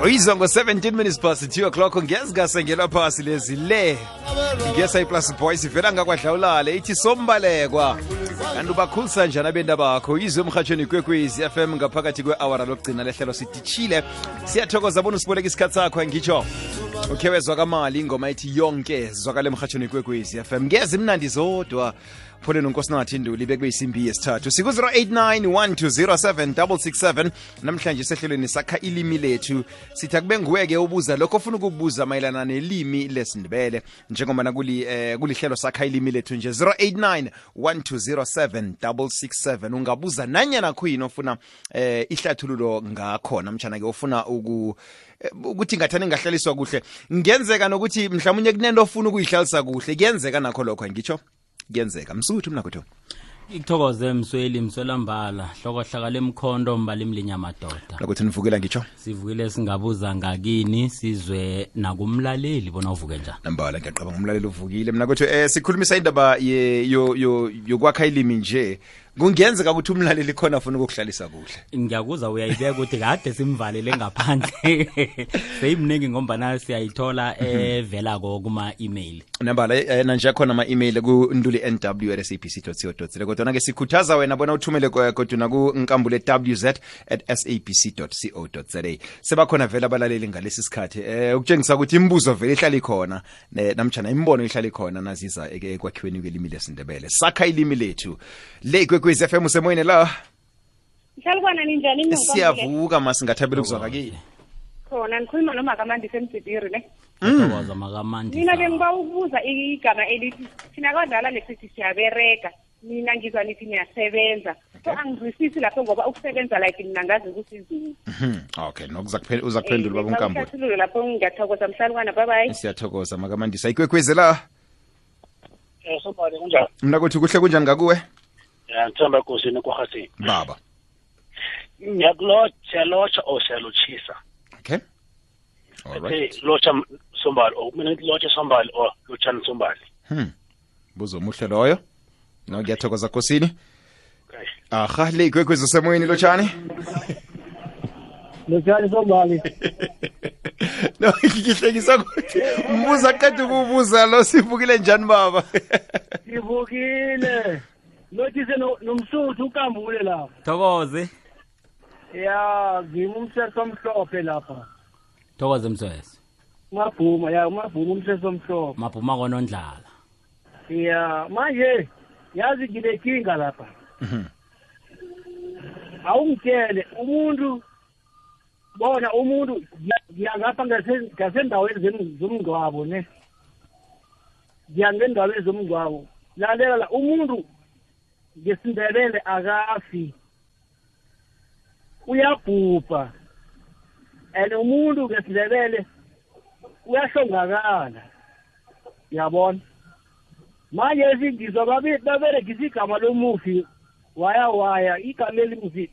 Uyizwa ngo 17 minutes past 2 o'clock ngiyazikasengela phasi lezi le ngiyesa plus boys ivela ngakwadlawulale ithi sombalekwa kanti ubakhulisa njani abenda bakho uyizwe emhathweni kwekwezi FM ngaphakathi kwe-hour lokugcina lehlelo sidichile siyathokoza bona usiboleka isikhathi sakho ngitsho ukhewezwa kamali ingoma ethi yonke zwakale emhathweni kwekwezi FM ngeze imnandi zodwa phone nonkosinathi Nduli bekuyisimbi yesithathu siku 0891207667 namhlanje sehlelweni sakha ilimi lethu sithi akube nguweke ubuza lokho ofuna ukubuza mayelana nelimi lesindebele njengoba kulihlelo sakha ilimi lethu nje 0891207667 ungabuza nanyana khuyini ofuna ihlathululo ngakho namtjana ke ufuna ukuthi ngathani ngahlaliswa kuhle ngenzeka nokuthi mhlawumnye kunento ofuna ukuyihlalisa kuhle kuyenzeka nakho lokho ngitsho kuyenzeka msuthu mnakho ikuthokoze mswelambala hlokohlakala emkhondo mbali mlinyamadoda lokuthi nivukela ngitsho sivukile singabuza ngakini sizwe nakumlaleli bona uvuke njani nambala ngiyaqabanga umlaleli uvukile mnakho sikhulumisa indaba yokwakha ilimi nje kungenzeka ukuthi umlaleli khona afuna ukukuhlalisa kuhle ngiyakuza uyayibeka ukuthi kade simvalele ngaphandle seyimningi ngombana siyayithola evela kuma-email nambala nanje khona ama-email ku-nduli@sabc.co.za kodwa ke sikhuthaza wena bona uthumele kodwa ku nkambule wz@sabc.co.za sebakhona vela abalaleli ngalesi sikhathi ukutshengisa ukuthi imibuzo vele ihlala ikhona namtjana imbono ihlala ikhona naziza ekwakhiweni kwelimi lesindebele sakha ilimi lethu le kwekwezi FM usemoyeni la Mhlalukwana ninjani siyavuka masingathabela ukuzwaka kini khona ngikhuluma noMakamandi semtsipiri ne Thokoza Makamandi mina bengiba ukubuza igama elithi thina kwadlala lesithi siyabereka mina ngizwa nithi niyasebenza so angizwisisi lapho ngoba ukusebenza like mina ngazi ukuthi izini okay uzakuphendula baba uNkambo ngiyathokoza lapho ngiyathokoza mhlalukwana bye bye siyathokoza Makamandi sayikwekwezi la Sombali kunjani mina kuthi kuhle kunjani ngakuwe ngithamba kusini kwahathi baba ngiyakulotsha osiyalochisa okay all right lotsha Sombali mina lotsha Sombali lotsha Sombali buzo muhle loyo no ngiyathokoza kusini okay aha le kwekwezi usemoyeni lotshani Lotshani Sombali no ngihlekisa ukuthi umbuza qeda ukubuza lo sivukile njani baba Sivukile Lothise nomsuthu ukambule lapha Thokoze ya ngimumseso omhlophe lapha Thokoze mswesi Mabhuma umseso omhlophe Mabhuma konondlala ya manje yazi ngilekinga lapha awungitshele umuntu bona umuntu ngiyangapha ngasendaweni zomngcwabo ne ngiyangendaweni zomngcwabo lalela umuntu ngesindebele akafi uyabhubha umuntu ngesindebele uyahlongakala yabona manje ngizwa baberegisa igama lomufi waya igama elimufi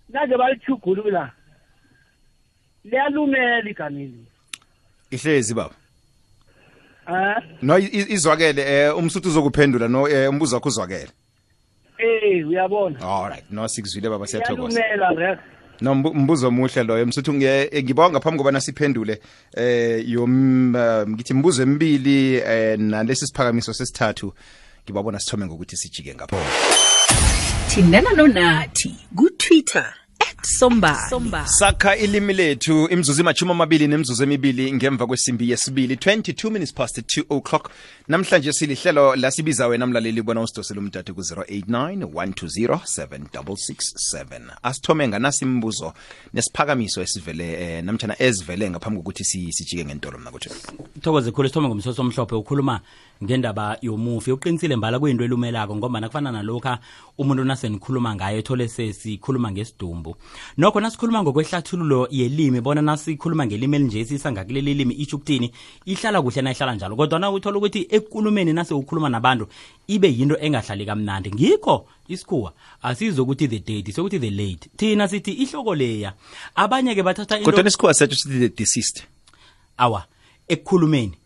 naje balichugulula liyalumela igama eli ihlezi baba no izwakele umsuthu uzokuphendula no umbuzo wakho uzwakele uyabona all right no sikuzwile baba siyathokoza liyalumela no mbuzo muhle loyo msuthu ngibawa ngaphambi kobana siphendule ngithi mbuzo emibili nalesi siphakamiso sesithathu ngibabona sithome ngokuthi sijike ngapho thindana nonathi ku-Twitter @sombali sakha ilimi lethu imzuzu imachumi nemzuzu emibili ngemva kwesimbi yesibili 22 minutes past 2 o'clock namhlanje silihlelo lasibiza wena mlaleli bona usidosele umdade ku 0891207667 asithome nganasi imbuzo nesiphakamiso esivele namtjana ezivele ngaphambi kokuthi sijike ngentolo mna kuthi Thokoze khulu sithome ngomsoso omhlophe ukhuluma ngendaba yomufi uqinisile mbala kuyinto elumelako ngoba nakufana nalokha umuntu nasenikhuluma ngayo ethole sesikhuluma ngesidumbu nokho nasikhuluma ngokwehlathululo yelimi bona nasikhuluma ngelimi elinje sisangakuleli limi isho ukuthini ihlala kuhle na ihlala njalo kodwa na uthola ukuthi ekukhulumeni nase ukhuluma nabantu ibe yinto engahlali kamnandi ngikho isikhuwa asizokuthi the date sokuthi the late thina sithi ihloko leya abanye ke bathatha kodwa isikhuwa sethu sithi the deceased awa ekukhulumeni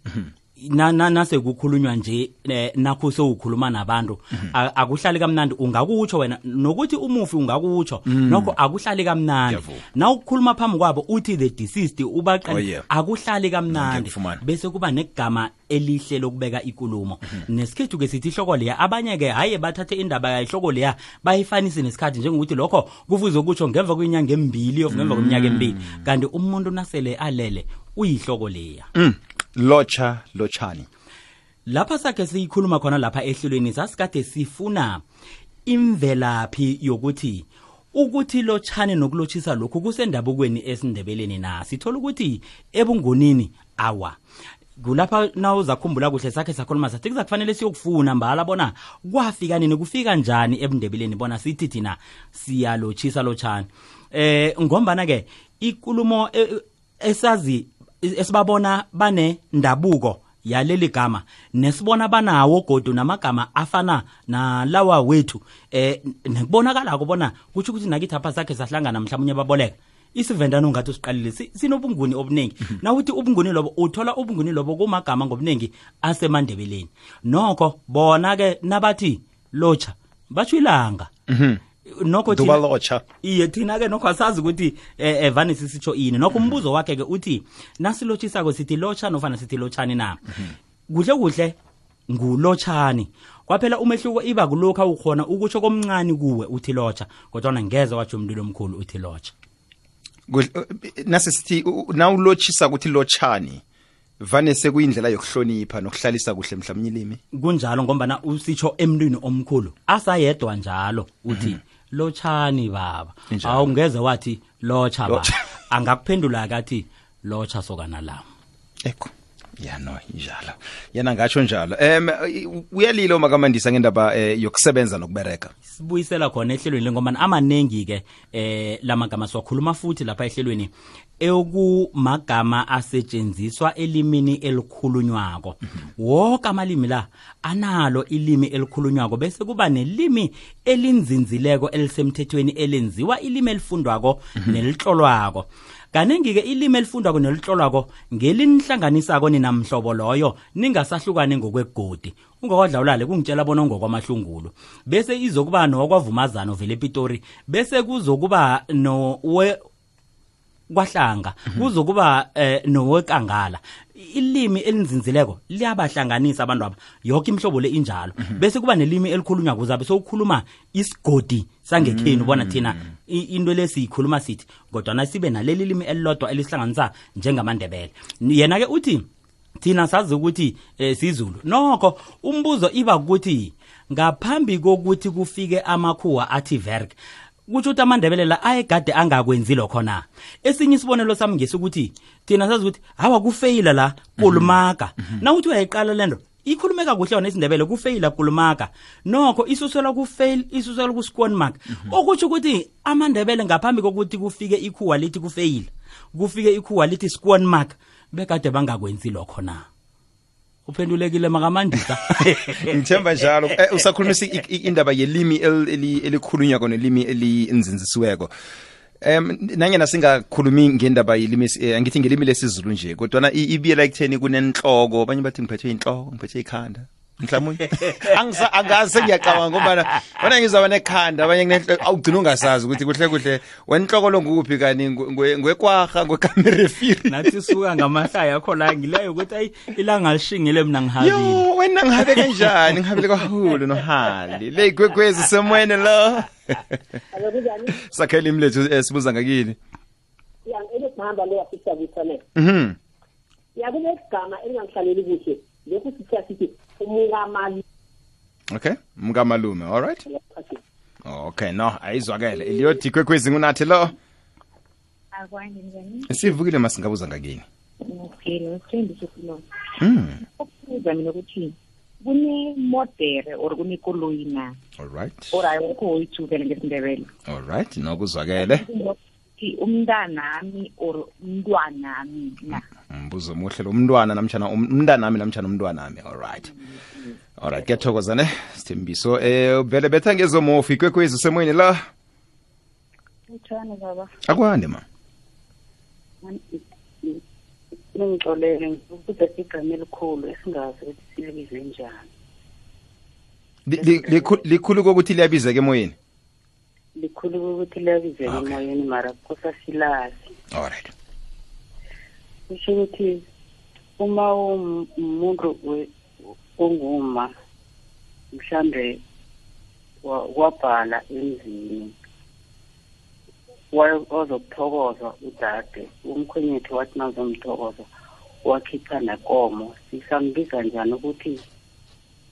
nase kukhulunywa nje nakho sewukhuluma nabantu akuhlali kamnandi ungakutsho wena nokuthi umufi ungakutsho nokho akuhlali kamnandi na ukukhuluma phambi kwabo uthi the deceased ubaqala akuhlali kamnandi bese kuba negama elihle lokubeka ikulumo nesikhethu ke sithi ihloko leya abanye ke haye bathathe indaba yayihloko leya bayifanise nesikhathi njengokuthi lokho kufuze ukutsho ngemva kwenyanga embili of ngemva kweminyaka embili kanti umuntu nasele alele uyihloko leya lochani lapha sakhe siyikhuluma khona lapha ehlelweni sasikade sifuna imvelaphi yokuthi lochani nokulochisa lokhu kusendabukweni esindebeleni na sithola ukuthi ebungonini awa kulapha nawuza kukhumbula kuhle sakhe sakhuluma sathi kuzakufanele siyokufuna mbala bona kwafika nini kufika njani ebundebeleni bona sithi thina siyalochisa lochani ngombana ke ikulumo esazi esibabona bane ndabuko yaleli gama nesibona banawo godu namagama afana nalawa wethu nekubonakala kubona kuthi ukuthi nakithi apha sakhe sahlangana mhlawumnye baboleka isivendano ngathi siqalile sinobunguni obuningi nawuthi ubunguni lobo uthola ubunguni lobo kumagama ngobuningi asemandebeleni nokho bona ke nabathi locha batsho ilanga nokho thina locha iye thina ke nokho asazi ukuthi evani sisitsho ini nokho umbuzo wakhe ke uthi nasilochisa ko sithi locha nofana sithi lochani na kuhle ngulochani kwaphela umehluko iba kulokho ukhona ukutsho komncane kuwe uthi locha kodwa ngeze wathi umlilo omkhulu uthi locha nasisithi nawulochisa ukuthi lochani vane sekuyindlela yokuhlonipha nokuhlalisa kuhle mhlawumnye ilimi kunjalo ngombana usitsho emntwini omkhulu asayedwa njalo uthi lochani baba awungeze wathi locha baba angakuphendula akathi locha sokana lami ekho no njalo yena ngatsho njalo uyalilo makamandisa ngendaba yokusebenza nokubereka sibuyisela khona ehlelweni ngoba amanengi ke lamagama siwakhuluma futhi lapha ehlelweni eyokumagama asetshenziswa elimini elikhulunywako wonke amalimi la analo ilimi elikhulunywako bese kuba nelimi elinzinzileko elisemthethweni elenziwa ilimi elifundwako nelihlolwako kanengi ke ilimi elifundwako nelihlolwako ngelinihlanganisako ninamhlobo loyo ningasahlukane ngokwegodi ungakwadlawulale kungitshela bona ngokwamahlungulo bese izokuba nokwavumazana vele ePitori bese kuzokuba kwahlanga kuzokuba nowekangala ilimi elinzinzileko liyabahlanganisa abantu aba yonke imhlobo le injalo bese kuba nelimi elikhulunywa kuzabe sokukhuluma isigodi sangekhenu bona thina into lesiyikhuluma sithi kodwa nasibe naleli limi elilodwa elisihlanganisa njengamandebele yena ke uthi thina sazi ukuthi sizulu nokho umbuzo iba ukuthi ngaphambi kokuthi kufike amakhuwa athi verg kuthi uthi amandebele la ayegade angakwenzi lokho na esinye isibonelo sami ngesukuthi thina sazi ukuthi hawa kufeyila la kulumaka nawuthi uyayiqala lento ikhulumeka kuhle yona isindebele kufeyila kulumaka nokho isuselwa kufail isuselwa ku squan mark okuthi ukuthi amandebele ngaphambi kokuthi kufike ikhuwa lithi kufeyila kufike ikhuwa lithi squan mark bekade bangakwenzi lokho na uphendulekile makamandisa ngithemba njalo usakhulumisa indaba yelimi elikhulunywa kona limi elinzinzisiweko nanyena singakhulumi ngendaba yelimi angithi ngelimi lesizulu nje kodwa ibiyela ekutheni kunenhloko abanye bathi ngiphethwe inhloko ngiphethwe ikhanda mhlawumnye angaze ngiyacabanga ngoba wena ngizaba nekhanda abanye awugcina ungasazi ukuthi kuhle wenhloko lo nguphi kani ngwekwaha ngwekamerefiri nathi suka ngamahlaya akho la ngileyo ukuthi ayi ilanga lishingile mina ngihabile yo wena ngihabe kanjani ngihabile kwahulu nohali le gwekwezi semwene lo sakhela imlethu sibuza ngakini yangihamba le yafisa kuthane yakulegama elingangihlaleli kuhle lokhu sithi umngamali okay umngamalume all right okay no ayizwakele iliyothi kwekwezi ngunathi lo akwanje njani sivukile masingabuza ngakini okay nothembi sokulo ukubuza mina ukuthi kune modere or kune koloyi na all right or ayikho uyithukele ngesindebele all right nokuzwakele umntanami or umntwanami na mbuzo muhle lo mntwana namtjana umntanami namtjana umntwanami all right kuyathokozane Sithembiso vele betha ngezomofi kwekwezi semoyeni la utshana baba akwande ma ningixolele ukuthi igama elikhulu esingazi ukuthi silibize njani. Likhulu kokuthi liyabizeka emoyeni. Likhulu kokuthi liyabizeka emoyeni mara kusasilazi. Alright. Kusho ukuthi uma umuntu onguma mhlambe wabhala emzini wazokuthokoza udade umkhwenyethu wathi nazomthokoza wakhipha nekomo sisambiza njani ukuthi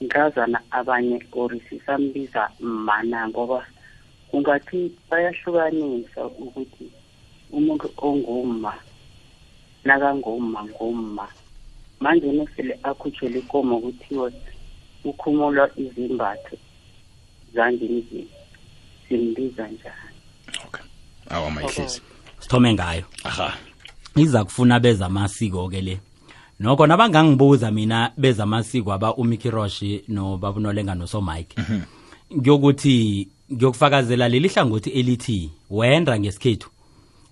ngazana abanye or sisambiza mana ngoba kungathi bayahlukanisa ukuthi umuntu onguma nakangumma manje nesele akhutshele ikomo kuthiwe ukhumulwa izimbatho zangendlini simbiza njani. Okay. Awa mayihlisi. Sithome ngayo. Aha. Iza kufuna beza amasiko ke le. Nokho nabangangibuza mina beza amasiko aba uMickey Roshi no Babunolenga no So Mike. Ngiyokuthi ngiyokufakazela leli hlangothi elithi wenda ngesikhethu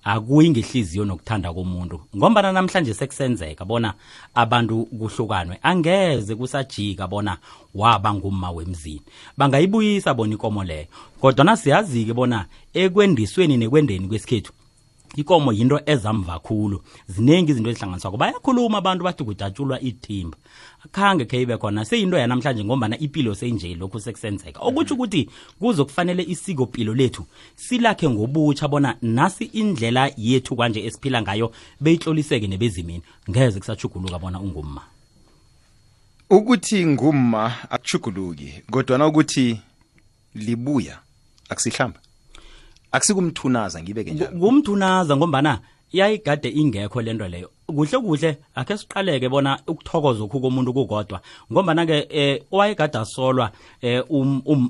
akuyi ngehliziyo nokuthanda komuntu ngoba namhlanje sekusenzeka bona abantu kuhlukanwe angeze kusajika bona waba ngumma wemzini bangayibuyisa bona ikomo leyo kodwa nasiyazi-ke bona ekwendisweni nekwendeni kwesikhethu ikomo yinto ezamva khulu ziningi izinto ezihlanganiswako bayakhuluma abantu bathi kudatshulwa ithimba akhange khe ibe khona seyinto yanamhlanje ngombana ipilo seyinje lokhu sekusenzeka okutsho ukuthi kuzokufanele isikopilo lethu silakhe ngobutsha bona nasi indlela yethu kanje esiphila ngayo beyihloliseke nebezimini ngeze kusachuguluka bona ungumma ukuthi ngumma akuchuguluki kodwa na ukuthi libuya akusihlamba akusikumthunaza ngibeke njalo kumthunaza ngombana iyayigade ingekho lento leyo kuhle akhe siqaleke bona ukuthokoza okhu komuntu kukodwa ngombana ke owayegada solwa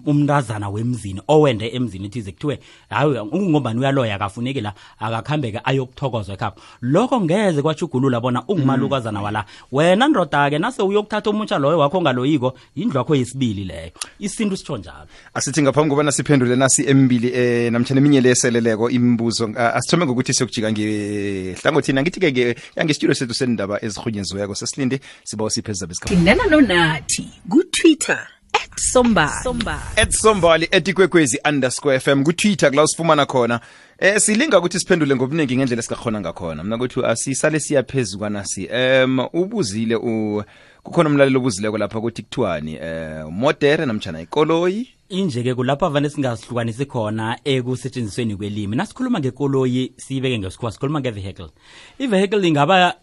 umntazana wemzini owende emzini ethize kuthiwe hayi ngombani uyaloya akafuneki la akakhambeke ayokuthokozwa ekhapha lokho ngeze kwachugulula bona ungumalukazana wala wena ndoda ke nase uyokuthatha umutsha loyo wakho ngaloyiko indlu yakho yesibili leyo isintu sitsho njalo asithi ngaphambi kobana siphendule nasi embili namtjana eminye leseleleko imibuzo asithome ngokuthi siyokujika ngehlangothini angithi ke ngestudio sethu sendaba ezirhunyeziweko sesilinde sibawa siphezulu besikhathi Thindana nonathi ku-Twitter @sombali @ikwekwezi_FM ku-Twitter kula usifumana khona silinga ukuthi siphendule ngobuningi ngendlela esikakhona ngakhona mina kuthi asisale siyaphezulu kwanasi ubuzile kukhona umlalelo obuzileko lapha kuthi kuthiwani modere namtjana ikoloyi inje-ke kulapho vane singasihlukanisi khona ekusetshenzisweni kwelimi nasikhuluma ngekoloyi siyibeke ngesikhuwa sikhuluma nge-vehicle i-vehicle ingaba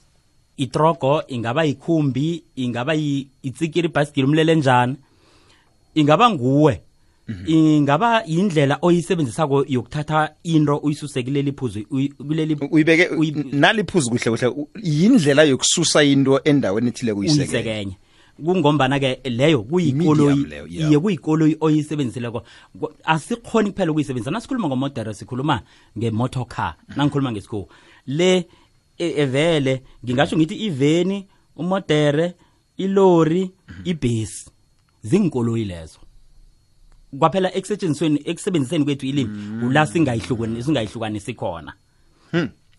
itrogo ingaba ikhumbi ingaba itsikiri ibhasikili umlelenjana ingaba nguwe ingaba yindlela oyisebenzisako yokuthatha into uyisuse kuleli phuzu uyibeke naliphuzu kuhle yindlela yokususa into endaweni ethile kuyisekenye kungombana ke leyo kuyikoloyi iye kuyikoloyi oyisebenzisileko asikhoni kuphela ukuyisebenzisa nasikhuluma ngomodere sikhuluma ngemotor car nangikhuluma ngesikho le evele ngingasho ngithi iveni umodere ilori ibhesi zinkoloyi lezo kwaphela ekusebenziseni kwethu ilimi ula singayihlukanisi khona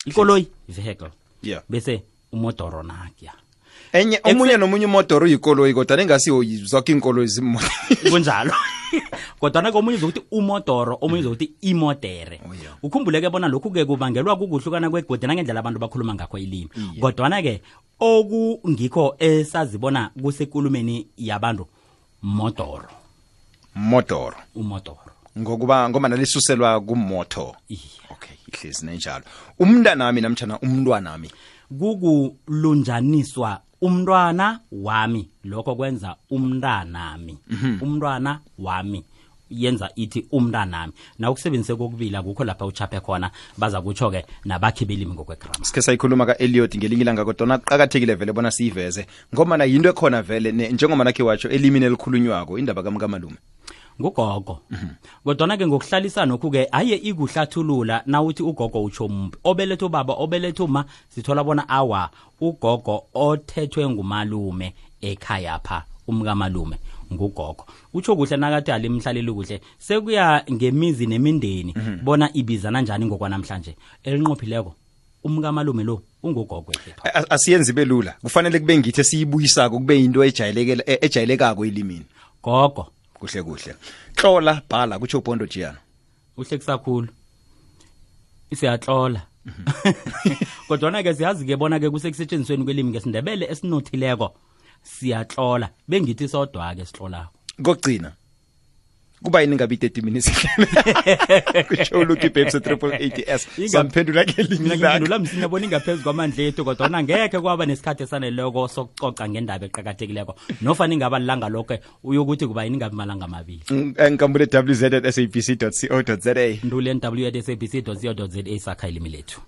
ikoloyi vehicle bese umodoro nakya enye omunye nomunye umodoro uyikoloyi kodwa engasiyo zonke inkoloyi zimoto kunjalo kodwa nakomunye uzokuthi umodoro omunye uzokuthi imodere ukhumbuleke bona lokhu ke kubangelwa kukuhlukana kwegodi nangendlela abantu bakhuluma ngakho ilimi kodwa ke okungikho esazibona kusekulumeni yabantu umodoro ngokuba ngoba nalisuselwa kumoto okay ihlezi nenjalo umntanami namtjana umntwanami kukulunjaniswa umntwana wami lokho kwenza umntanami umntwana wami yenza ithi umntanami na ukusebenzise kokubila kukho lapha uchaphe khona baza kutsho ke nabakhi belimi ngokwegrammar sike sayikhuluma ka Elliot ngelinye ilanga kodwa qhakathekile vele bona siyiveze ngoba na yinto ekhona vele njengoba nakhe watsho elimini elikhulunywako indaba kaMakalume ngugogo kodwa ke ngokuhlalisana lokhu ke aye ikuhlathulula nawuthi ugogo utsho umbi obeletho baba obeletho ma sithola bona awa ugogo othethwe ngumalume ekhaya pha umkamalume ngugogo utsho kuhle nakathi alimhlaleli kuhle sekuya ngemizi nemindeni bona ibizana njani ngokwanamhlanje elinqophileko umkamalume lo ungugogo wethu. Asiyenzi belula kufanele kube ngithi siyibuyisako kube into ejayelekako elimini gogo kuhle hlola bhala kutsho Bondo Jiyana uhle kusakhulu isiyatlola kodwa ke siyazi ke bona ke kusekusetshenziweni kwelimi ngesindebele esinothileko siyatlola bengithi sodwa ke sitlolako kokugcina kuba yini ngabe 30 minutes kutsho Lucky Babes 888s samphendula ke mina ngiphendula msinya bona ingaphezulu kwamandla ethu kodwa ngeke kwaba nesikhathi esaneleko sokucoca ngendaba eqhakathekileko nofana ingaba langa lonke uyokuthi kuba yini ngabe malanga amabili ngikambule wz@sabc.co.za ndule nw@sabc.co.za sakha ilimi lethu.